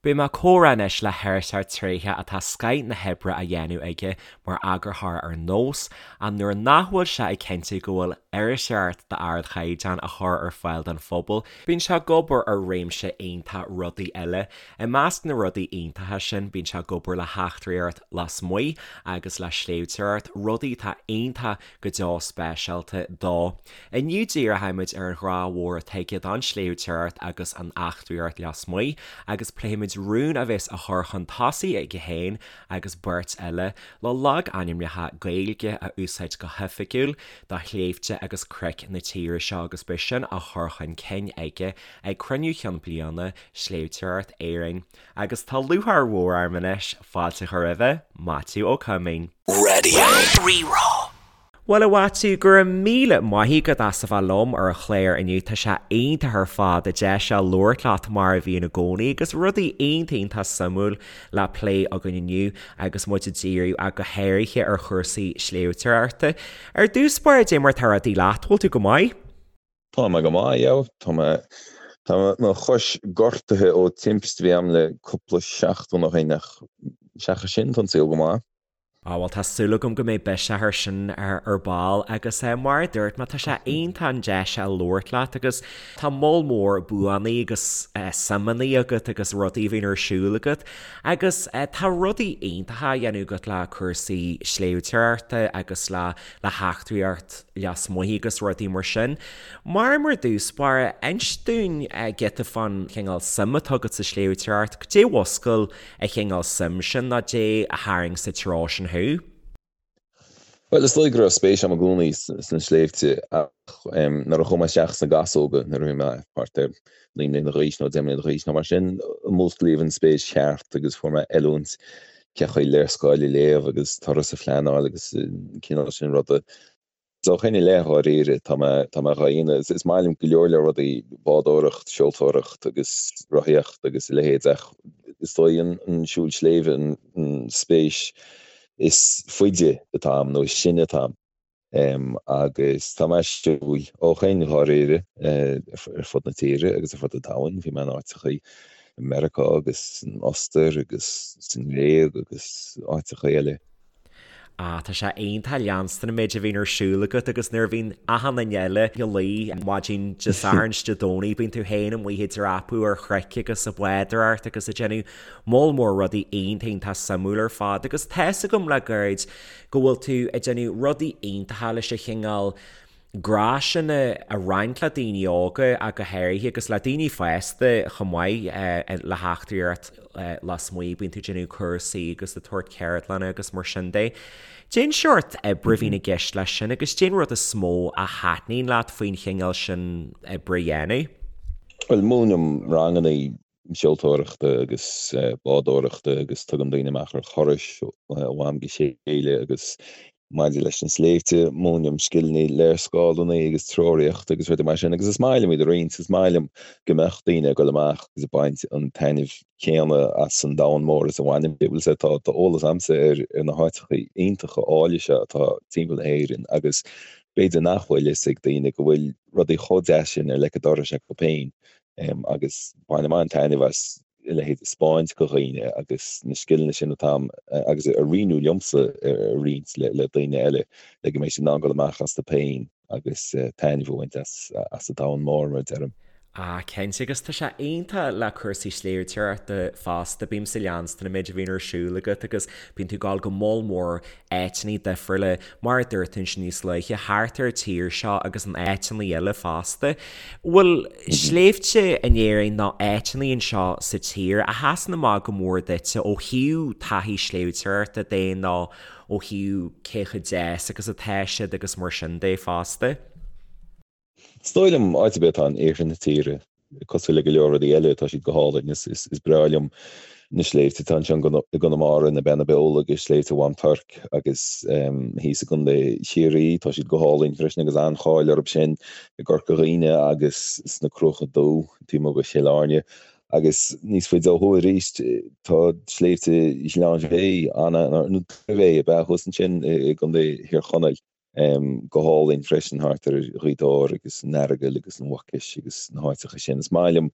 Beidh mé ag comhrá anois le hiriseoir tréitheach atá scoith na hoibre á dhéanamh aige mar eagarthóir ar Nós, ach nuair nach bhfuil sé ag cinntiú go bhfuil iriseoireacht d'ardchaighdeán á chur ar fáil don phobal, bíonn sé ag obair ar réimse iontach rudaí eile. I measc na rudaí iontacha sin, bíonn sé ag obair le heachtraíocht lasmuigh agus le sléibhteoireacht, rudaí atá iontach go deo speisialta dó. Inniu díreoimid ar an ghrá mhór atá aige don sléibhteoireacht agus an eachtraíocht lasmuigh agus pléifimid rún a bheas á chur chun tosaigh aige féin agus beirt eile le logainmneacha Gaeilge a úsáid go hoifigiúil do shléibhte agus cnoic na tíre seo agus beidh sin á chur chun cinn aige ag Cruinniú Chinn Bliana Sléibhteoireacht Éireann. Agus tá lúcháir mhór orm anois fáilte a chur roimhe, Maitiú Ó Coimín. Radio Rí-Rá. Bhuel, a Mhaitiú, go raibh míle maith agat as a bheith liom ar an chlár inniu. Tá sé iontach ar fad an deis seo labhairt leat mar a bhíonn i gcónaí agus rudaí iontach iontach suimiúil le plé againn inniu agus muid ag díriú ach go háirithe ar chúrsaí sléibhteoireachta. Ar dtús báire, dé mar tá rudaí leat, bhfuil tú go maith? Tá mé go maith, yeah. Tá mé, tá mo chois gortaithe ó timpiste a bhí a'm le cúpla seachtain ó shin ach seachas sin tá an saol go maith. Á bhuel tá súil agam go mbeidh biseach air sin ar ball agus mar a dúirt mé tá sé iontach an deis a labhairt leat agus tá moll mór buanna agus suimeanna agat agus rudaí a bhíonn ar siúl agat agus tá rudaí iontacha á dhéanamh agat le cúrsaí sléibhteoireachta agus le le heachtraíocht lasmuigh agus rudaí mar sin. Mar mar dtús báire, inis dúinn giota fán chineál suim atá agat sa sléibhteoireacht, cad é a mhúscail an chineál suim sin nó dé a tharraing sa treo sin thú? Bhuel, is dóigh go raibh spéis agam i gcónaí sna sléibhte ach nuair a chuaigh mé isteach sna Gasóga nuair a bhí mé thart ar 9 mbliana d'aois nó 10 mbliana d'aois nó mar sin, músclaíodh an spéis cheart agus fuair mé oiliúint cén chaoi léarscáil a léamh agus turas a phleanáil agus an cineál sin ruda. So ó shin i leith, dháiríre, tá mé, tá mé dhá dhéanamh. Is maith liom go leor leor rudaí, bádóireacht, seoltóireacht agus rothaíocht agus a leithéid ach is dóigh an, an siúl sléibhe an, an spéis is faide atá a'm nó is sine atá a'm. Agus tá mé ag siúl ó shin, dháiríre, ar fud na tíre agus ar fud an domhain. Bhí mé in áiteachaí i Meiriceá agus san Ostair agus sa nGréig agus áiteachaí eile. Ah, tá sé iontach leanstan an méid a bhíonn ar siúl agat agus nuair a bhíonn achan duine eile ina luí maidin Dé Sathairn is Dé Domhnaigh, bíonn tú féin amuigh ag dreapadh ar chnoic agus ag bádóireacht agus ag déanamh moll mór rudaí iontach iontach suimiúil ar fad agus tá's agam le gairid go bhfuil tú ag déanamh rudaí iontacha leis an chineál grá sin a roinnt le daoine óga ach go háirithe agus le daoine fásta chomh maith le heachtraíocht lasmuigh, bíonn tú ag déanamh cúrsaí agus ag tabhairt ceardlanna agus mar sin de. Cén seort oibre a bhíonn i gceist leis sin agus cén rud is mó a thaitníonn leat faoin chineál sin oibre a dhéanamh? Bhuel, múinim ranganna seoltóireachta agus bádóireachta agus tugaim daoine amach ar thurais ó am go chéile agus maidir leis na sléibhte, múinim scileanna léarscáileanna agus treoraíochta agus rudaí mar sin agus is maith liom iad a roinnt, is maith liom go mbeadh daoine ag dul amach agus ag baint an taitnimh céanna as an domhan mór is a bhainim. Bhuel, sea, tá eolas a'msa ar na háiteacha iontacha áille seo atá timpeall na hÉireann agus b'fhéidir nach bhfuil fhios ag daoine go bhfuil rudaí chomh deas sin ar leic an dorais acu féin. agus bainim an-taitneamh as a leithéid a 'spáint do dhaoine agus na scileanna sin atá a'm agus a rinneadh liomsa a roinnt le daoine eile le go mbeidh siad in ann dul amach astu féin agus taitneamh a bhaint as an domhan mór, mar a deirim. Ah, cinnte, agus tá sé iontach le cúrsaí sléibhteoireachta fosta, bímse ag leanstan an méid a bhíonn ar siúl agat agus bíonn tú ag dul go moll mór áiteanna difriúla, mar a dúirt tú ansin níos luaithe, thart ar an tír seo agus in áiteanna eile fosta. Bhfuil sléibhte in Éirinn nó áiteanna anseo sa tír a sheasann amach go mór duitse ó thaobh taithí sléibhteoireachta de nó ó thaobh cé chomh deas agus atá siad agus mar sin de fosta? Is dóigh liom, áit ar bith atá in iarthar na tíre, cosúil le go leor rudaí eile, tá siad go hálainn. Is breá liom na sléibhte atá anseo i gConamara, na Beanna Beola agus Sléibhte Mhám Toirc agus thíos i gContae Chiarraí, tá siad go hálainn freisin agus an-cháil orthu sin i gCorca Dhuibhne agus sna Cruacha Dubha, taobh amuigh de Chill Airne. Agus níos faide ó thuaidh arís, tá Sléibhte Ghleann Bhéith, nó Doire Bhéith ab ea, thuas ansin i gContae Thír Chonaill. Go hálainn freisin thart ar Ghaoth Dobhair agus an Earagail agus an Mhucais agus na háiteacha sin. Is maith liom,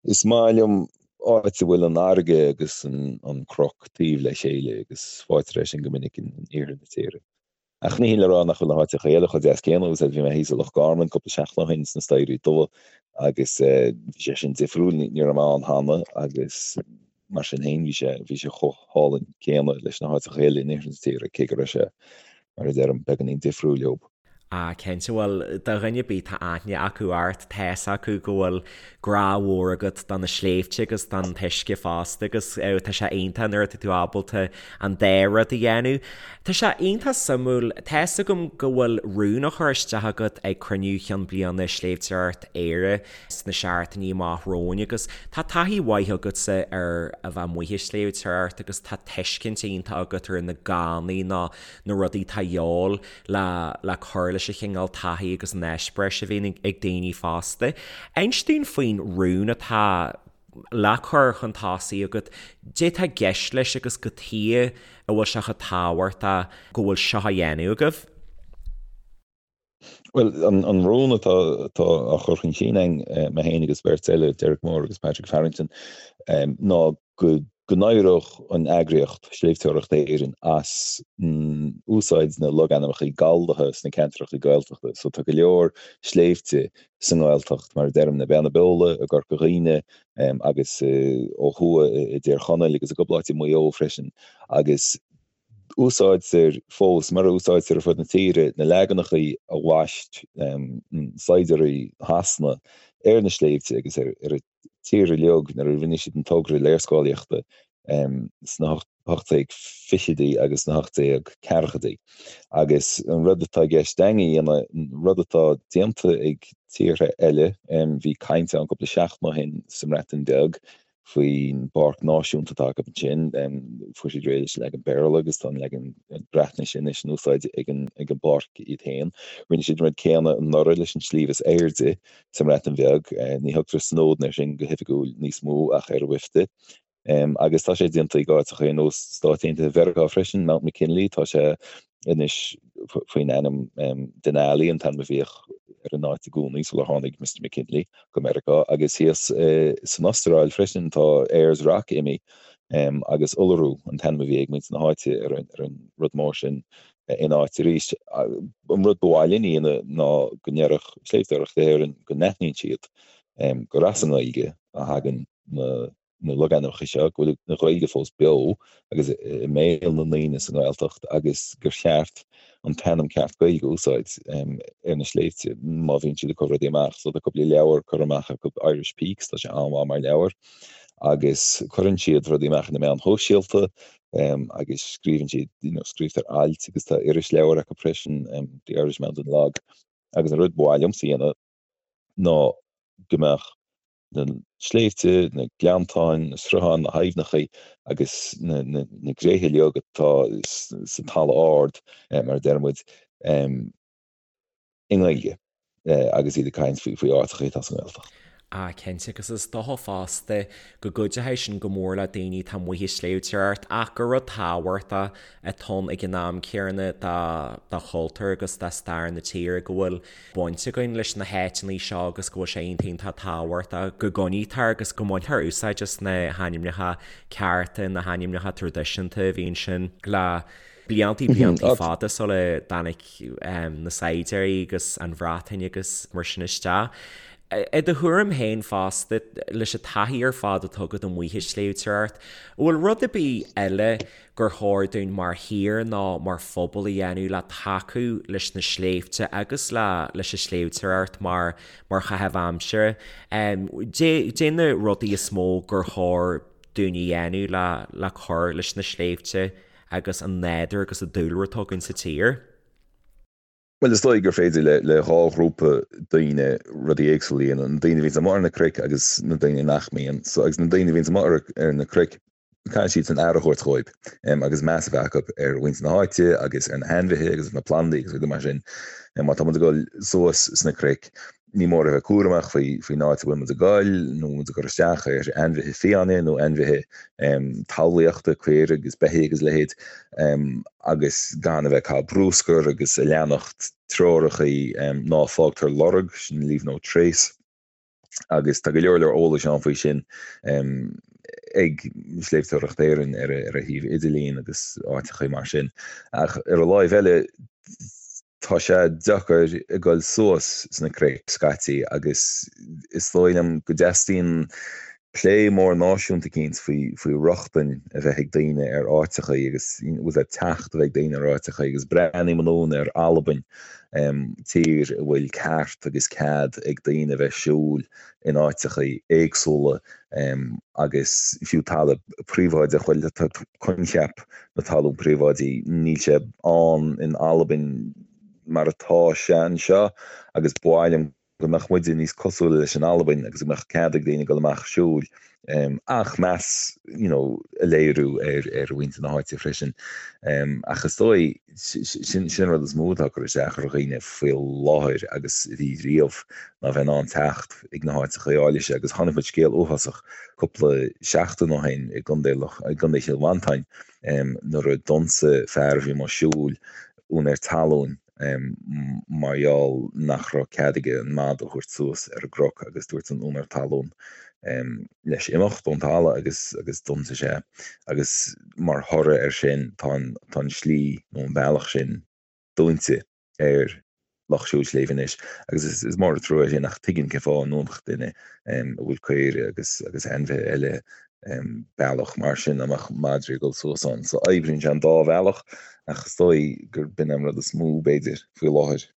is maith liom. áit a bhfuil an fharraige agus an cnoc taobh le chéile agus faightear é sin go minic in iarthar na tíre. Ach ní hin le rá nach bhfuil na háiteacha eile chomh deas céanna, agus bhí mé thíos i Loch Garman cúpla seachtain ó shin sna Staighrí Dubha agus bhí sé sin difriúil, ní raibh mé ann cheana agus mar sin féin bhí sé, bhí sé chomh hálainn céanna leis na háiteacha eile in iarthar na tíre, cé go raibh sé, mar a deirim, beagáinín difriúil leo. Ah, cinnte, bhuel, do dhuine ar bith tá aithne acu ort, tá's acu go bhfuil grá mhór agat do na sléibhte agus don t-uisce fosta agus tá sé iontach nuair atá tú ábalta an dá rud a dhéanamh. Tá sé iontach suimiúil, tá's agam go bhfuil rún á chur isteach agat ag cruinniú chinn bliana Sléibhteoireacht Éire sna seachtainí amach romhainn agus tá taithí mhaith agatsa ar a bheith amuigh ag sléibhteoireacht agus tá tuiscint iontach agat ar na gánaí nó na rudaí atá a dhíobháil le le cur leis an chineál taithí agus an eispéiris a bhíonn ag daoine fosta. Inis dúinn faoin rún atá le cur chun tosaigh agat, cad é atá i gceist leis agus cad chuige a bhfuil sé chomh tábhachtach go bhfuil seo á dhéanamh agaibh. Bhuel, an rún atá atá á chur chun cinn againn, mé féin agus beirt eile, Derek Moore agus Patrick Farrington, ná go n-éireodh an eagraíocht, Sléibhteoireacht Éireann, as úsáid na logainmneacha galldaithe sna ceantracha Gaeltachta. So tá go leor sléibhte sa nGaeltacht, mar a deirim, na Beanna Beola i gCorca Dhuibhne agus ó thuaidh i dTír Chonaill agus i gcúpla áit i Maigh Eo freisin, agus úsáidtear fós, mar a úsáidtear ar fud na tíre, na leaganacha a bhaist saighdiúirí Shasana ar na sléibhte agus ar an tír uilig nuair a rinne siad an togra léarscáilíochta sna 1820idí agus sna 1840idí. Agus an rud atá i gceist againn a dhéanamh, an rud atá déanta ag tíortha eile, bhí caint ann cúpla seachtain ó shin sa mBreatain Bheag faoin bpáirc náisiúnta atá acu ansin, fuair siad réidh leis an leagan Béarla agus tá an leagan Breatnaise anois in úsáid ag an bpáirc iad féin. Rinne siad an rud céanna anuraidh leis an sliabh is airde sa mBreatain Bheag. Ní thugtar Snowdon air sin go hoifigiúil níos mó ach Yr Wyddfa. Agus tá sé déanta ag áiteacha ar nós Stáit Aontaithe Mheiriceá freisin, Mount McKinley, tá sé anois faoin ainm Denali, an t-ainm a bhíodh ar an áit i gcónaí sular tháinig Mister McKinley go Meiriceá. Agus thíos san Astráil freisin tá Ayers Rock imithe agus Uluru an t-ainm a bhí ag muintir na háite ar an rud mór sin ina áit arís. An rud ba mhaith linn a dhéanamh ná go ndéarfadh Sléibhteoireacht Éireann go n-aithníonn siad gur as an nGaeilge a thagann na logainmneacha seo, go bhfuil an Ghaeilge fós beo agus i mbéal na ndaoine sa nGaeltacht agus gur cheart an t-ainm ceart Gaeilge a úsáid ar na sléibhte má bhíonn siad ag cur rudaí amach. So tá cúpla leabhar curtha amach acu, Irish Peaks, tá sé an-mhaith mar leabhar agus cuireann siad rudaí amach ar na meáin shóisialta agus scríobhann siad, you know, scríobhtar ailt agus tá irisleabhar acu freisin, The Irish Mountain Log, agus an rud ba mhaith liomsa a dhéanamh ná go mbeadh na sléibhte, na gleanntáin, na srutháin, na haibhneacha agus na, na, na gréithe uilig atá sa talamh ard, mar a deir muid, i nGaeilge agus iad ag caint faoi áiteacha atá sa nGaeltacht. Ah cinnte, agus is dócha fosta go gcuideoidh sin go mór le daoine atá amuigh ag sléibhteoireacht ach gur rud tábhachtach atá ann ag an am céanna do chultúr agus do stair na tíre go bhfuil baint againn leis na háiteanna seo agus go bhfuil sé iontach iontach tábhachtach go gcoinnítear agus go mbaintear úsáid as na hainmneacha cearta, na hainmneacha traidisiúnta a bhí ansin le bliantaí bliantaí fada sula dtáinig na saighdiúirí agus an Bhreatain agus mar sin isteach. I do thuairim féin fosta, leis an taithí ar fad atá agat amuigh ag sléibhteoireacht, an bhfuil rud ar bith eile gur chóir dúinn mar thír nó mar phobal a dhéanamh le tacú leis na sléibhte agus le leis an sléibhteoireacht mar mar chaitheamh aimsire? Cad é na rudaí is mó gur chóir dúinn a dhéanamh le le cur leis na sléibhte agus an nádúr agus an dúlra atá againn sa tír. Bhuel, is dóigh gur féidir le le dhá ghrúpa daoine rudaí éagsúla a dhéanamh, na daoine a bhíonns amuigh ar na cnoic agus na daoine nach mbíonn. So, agus na daoine a bhíonns amuigh ar ar na cnoic, caithfidh siad san aire a thabhairt dhóibh agus meas a bheith acu ar mhuintir na háite agus ar na hainmhithe agus ar na plandaí agus rudaí mar sin. Má tá muid ag dul suas sna cnoic, Ní mór a bheith cúramach faoin áit a bhfuil muid ag goil, nó muid ag cur isteach ar ainmhithe fiáine nó ainmhithe talmhaíochta, caoirigh agus beithígh agus a leithéid, agus gan a bheith ag caitheamh brúscair agus a leanacht treorachaí ná fágtar lorg, sin leave no trace. Agus tá go leor leor eolais ann faoi sin. Ag Sléibhteoireacht Éireann ar a shuíomh idirlín agus áiteachaí mar sin. Ach ar an láimh eile, tá sé deacair ag dul suas sna cnoic scaití agus is dóigh liom go dteastaíonn plé mór náisiúnta eicínt faoi faoi rochtain a bheith ag daoine ar áiteachaí agus bhfuil a teacht a bheith ag daoine ar áiteachaí agus breathnaím anonn ar Albain, tír a bhfuil ceart agus cead ag daoine a bheith siúl in áiteachaí éagsúla agus fiú talamh príobháideach, bhuel tá coincheap na talún príobháidí, níl sé ann in Albain mar atá sé anseo agus ba mhaith liom go mbeadh muide níos cosúla leis an Albain agus go mbeadh cead ag daoine dul amach siúil ach meas you know a léiriú ar ar mhuintir na háite freisin. Ach is dóigh sin sin an rud is mó atá ag cur isteach ar dhaoine faoi láthair agus a bhí riamh ná bheith in ann teacht ag na háiteacha áille seo agus chonaic muid scéal uafásach cúpla seachtain ó shin i gContae i gContae Chill Mhantáin nuair a d'ionsaigh fear a bhí amuigh siúil úinéir talún mar gheall nach raibh cead aige an madadh a thabhairt suas ar an gcnoc agus dúirt an úinéir talún leis imeacht ón talamh agus agus d'ionsaigh sé agus mar thoradh air sin tá an tá an slí nó an bealach sin dúnta ar lucht siúil sléibhe anois agus is is mór an trua é sin ach tuigim cén fáth a ndúnfadh duine a bhfuil caoire agus agus ainmhithe eile bealach mar sin dá mbeadh madraí ag dul suas ann. So oibríonn sé an dá bhealach ach is dóigh gur b'in an rud is mó b'fhéidir faoi láthair.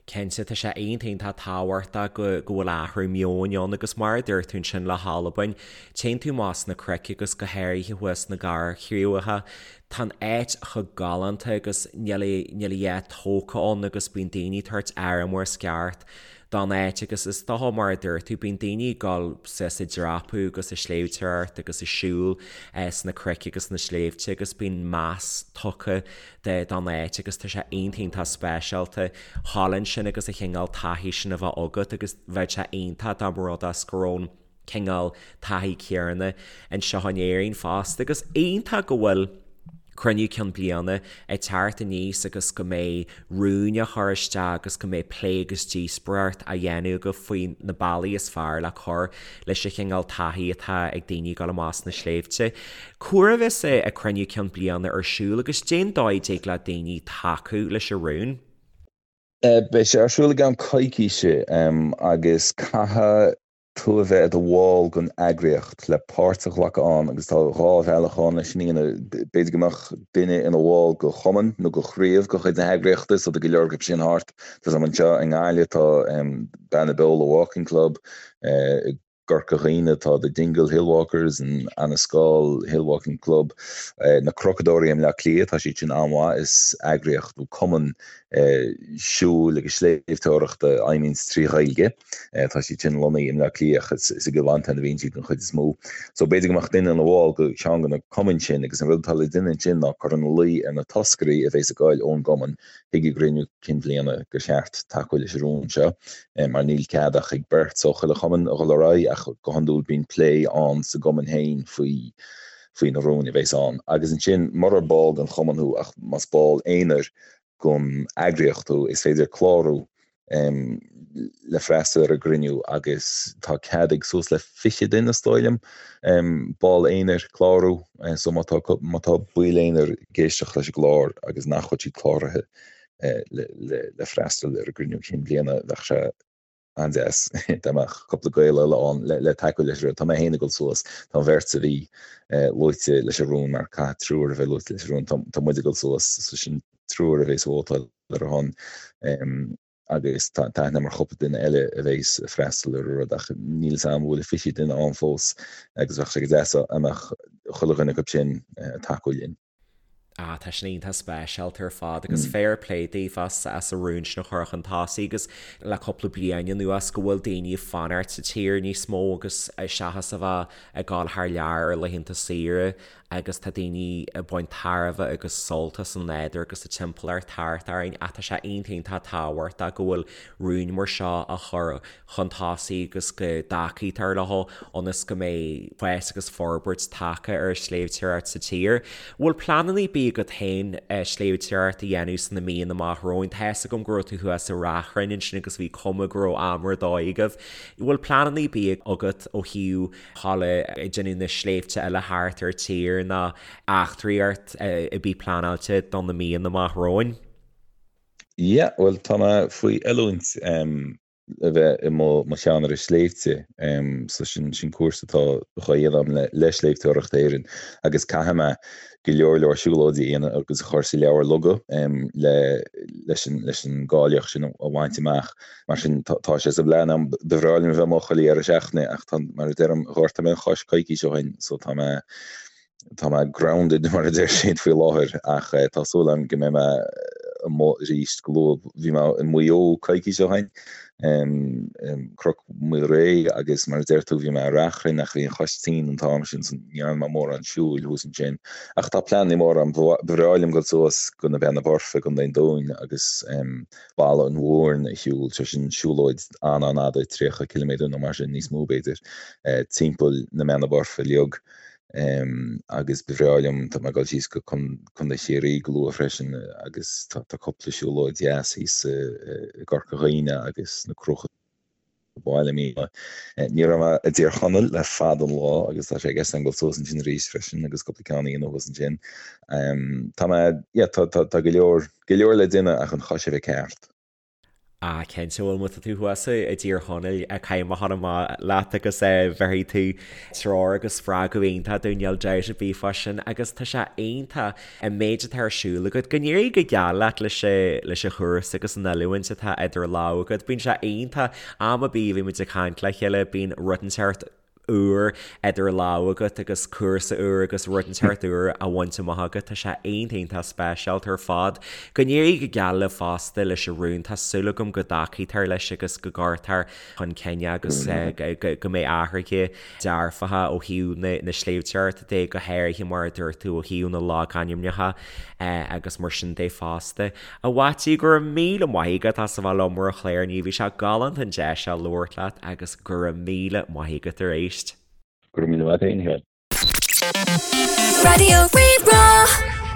Cinnte, tá sé iontach iontach tábhachtach go go bhfuil athrú meoin ann agus mar a dúirt tú ansin le hAlbain, téann tú amach sna cnoic agus go háirithe thuas sna Garbhchríocha, tá an áit chomh galánta agus níl a níl a dhath tógtha ann agus bíonn daoine ag tabhairt aire mar is ceart don áit agus is dócha mar a dúirt tú, bíonn daoine ag dul suas ag dreapadh agus ag sléibhteoireacht agus ag siúl sna cnoic agus sna sléibhte agus bíonn meas tugtha don áit agus tá sé iontach iontach speisialta thall ansin agus an chineál taithí sin a bheith agat agus bheadh sé iontach dá mba rud é go raibh an cineál taithí céanna anseo in Éirinn fosta agus iontach go bhfuil cruinniú ceann bliana ag teacht aníos agus go mbeidh rúin á chur isteach agus go mbeidh plé agus díospóireacht á dhéanamh agaibh faoi na bealaí is fearr le cur leis an chineál taithí atá ag daoine ag dul amach sna sléibhte. Cá huair a bheas an cruinniú ceann bliana ar siúl agus cén dóigh a dtig le daoine tacú leis an rún? Beidh sé ar siúl i gceann coicíse agus caithfidh tú a bheith i do bhall den eagraíocht le páirt a ghlacadh ann agus tá dhá bhealach ann leis sin a dhéanamh. B'fhéidir go mbeadh duine ina bhall de chumann nó de chraobh de chuid na heagraíochta so tá go leor acu sin thart. Tá 's agam anseo i nGaillimh tá Beanna Beola Walking Club, i gCorca Dhuibhne tá The Dingle Hillwalkers, an Annascaul Hillwalking Club, na Cnocadóirí i mBleá Cliath, tá siad sin an-mhaith, is eagraíocht nó cumann siúil agus sléibhteoireachta a fheidhmíonns trí Ghaeilge. Tá siad sin lonnaithe i mBleá Cliath ach is i gCill Mhantáin a bhíonn siad den chuid is mó. So b'fhéidir go mbeadh duine ina bhall de cheann de na cumainn sin agus an rud atá le déanamh ansin ná cur ina luí ar na toscairí a bhéas ag goil ón gcumann chuig an gcruinniú cinn bhliana gur cheart tacú leis an rún seo mar níl cead ach ag beirt ó chuile chumann a dhul ar aghaidh ach go hiondúil bíonn plé ann sa gcumann féin faoi faoi na rúin a bhéas ann. Agus ansin murar ball den chumann thú ach más ball aonair den eagraíocht thú is féidir clárú le freastal ar an gcruinniú agus tá cead ag suas le 20 duine is dóigh liom, ball aonair, clárú so má tá má tá baill aonair ag éisteacht leis an gclár agus nach bhfuil siad cláraithe le le le freastal ar an gcruinniú cinn bhliana bheadh sé an-deas dá mbeadh cúpla Gael eile ann le le tacú leis an rud. Tá mé féin ag dul suas, tá an bheirt a bhí luaite leis an rún mar caithfidh triúr a bheith luaite leis an rún, tá tá muid ag dul suas so sin triúr a bhéas ag vótáil ar a shon agus tá aithne agam ar chúpla duine eile a bhéas ag freastal ar an rud ach níl 'fhios a'm an bhfuil 20 duine ann fós agus bheadh sé go deas dá mbeadh chuile dhuine acu sin ag tacú linn. Ah, tá sin iontach speisialta ar fad agus fair play daoibh as as an rún sin a chur chun tosaigh agus le cúpla bliain anuas go bhfuil daoine ag fanacht sa tír níos mó agus seachas a bheith ag dul thar lear ar laethanta saoire. agus tá daoine ag baint tairbhe agus sult as an nádúr agus an timpeallacht thart orainn ach tá sé iontach iontach tábhachtach go bhfuil rúin mar seo á chur chun tosaigh agus go dtacaítear leo ionas go mbeidh fás agus forbairt tagtha ar an sléibhteoireacht sa tír. Bhfuil pleananna ar bith agat féin sléibhteoireacht a dhéanamh sna míonna amach romhainn? Tá fhios agam go raibh tú thuas i Ráth Chrainn ansin agus bhí cuma go raibh am ar dóigh agaibh. Bhfuil pleananna ar bith agat ó thaobh dhul ag déanamh na sléibhte eile thart ar tír nó eachtraíocht ar bith pleanáilte do na míonna amach romhainn? Yeah, bhuel tá mé faoi oiliúint le bheith i mo cheannaire sléibhte, so sin sin cúrsa atá dhá dhéanamh agam le le Sléibhteoireacht Éireann agus caithfidh mé go leor leor siúlóidí a dhéanamh agus a chur sa leabhar loga le leis an leis an gcáilíocht sin a bhaint amach. Mar sin tá sé sa bplean agam. Ba bhreá liom a bheith amuigh chuile dheireadh seachtaine ach tá, mar a deirim, ghortaigh mé an chois coicís ó shin so tá mé, tá mé grounded mar a deir siad faoi láthair ach tá súil agam go mbeidh mé amuigh arís go luath. Bhí mé i Maigh Eo coicís ó shin, Cnoc Mhaoilré agus mar a deir tú bhí mé i Rath Chrainn ach bhí an chois tinn an t-am sin so ní dhearna mé mórán siúil thuas ansin. Ach tá pleananna móra agam. Ba bhreá liom dul suas go na Beanna Boirche i gContae an Dúin agus Balla an Mhúrn a shiúl, sé sin siúlóid an-an-fhada, 30 ciliméadar nó mar sin, níos mó b'fhéidir, timpeall na mBeanna Boirche uilig. Agus ba bhreá liom, tá mé ag dul síos go Contae Chiarraí go luath freisin agus tá cúpla siúlóid dheas thíos i gCorca Dhuibhne agus na Cruacha Baile Míne. Ní raibh mé i dTír Chonaill le fada an lá agus tá sé i gceist agam dul suas ansin arís freisin agus cúpla ceann a dhéanamh thuas ansin. Tá mé, yeah, tá, tá, tá go leor, go leor le déanamh ach an chois a bheith ceart. Ah, cinnte, bhuel má tá tú thuas i dTír Chonaill, caithfidh mé a ghabháil amach leat agus bhéarfaidh tú treoir agus spreagadh iontach dúinn, níl dabht ar bith fá sin agus tá sé iontach an méid atá ar siúl agat. Go n-éirí go geal leat leis leis an chúrsa agus an oiliúint atá idir lámha agat. Bíonn sé iontach, am ar bith a bhímid ag caint le chéile, bíonn rud inteacht úr idir lámha agat agus cúrsa úr agus rud inteacht úr á bhaint amach agat. Tá sé iontach iontach speisialta ar fad. Go n-éirí go geal libh fosta leis an rún. Tá súil agam go dtacaítear leis agus go gcuirtear chun cinn é agus go mbeidh athruithe dearfacha ó thaobh na sléibhteoireachta de, go háirithe mar a dúirt tú ó thaobh na logainmneacha agus mar sin de fosta. A Mhaitiú, go raibh míle maith agat as a bheith liom ar an chlár inniu, bhí sé galánta an deis seo labhairt leat agus go raibh míle maith agat arís. Go raibh míle maith agat féin, a Sheáin. Raidió Rí-Rá.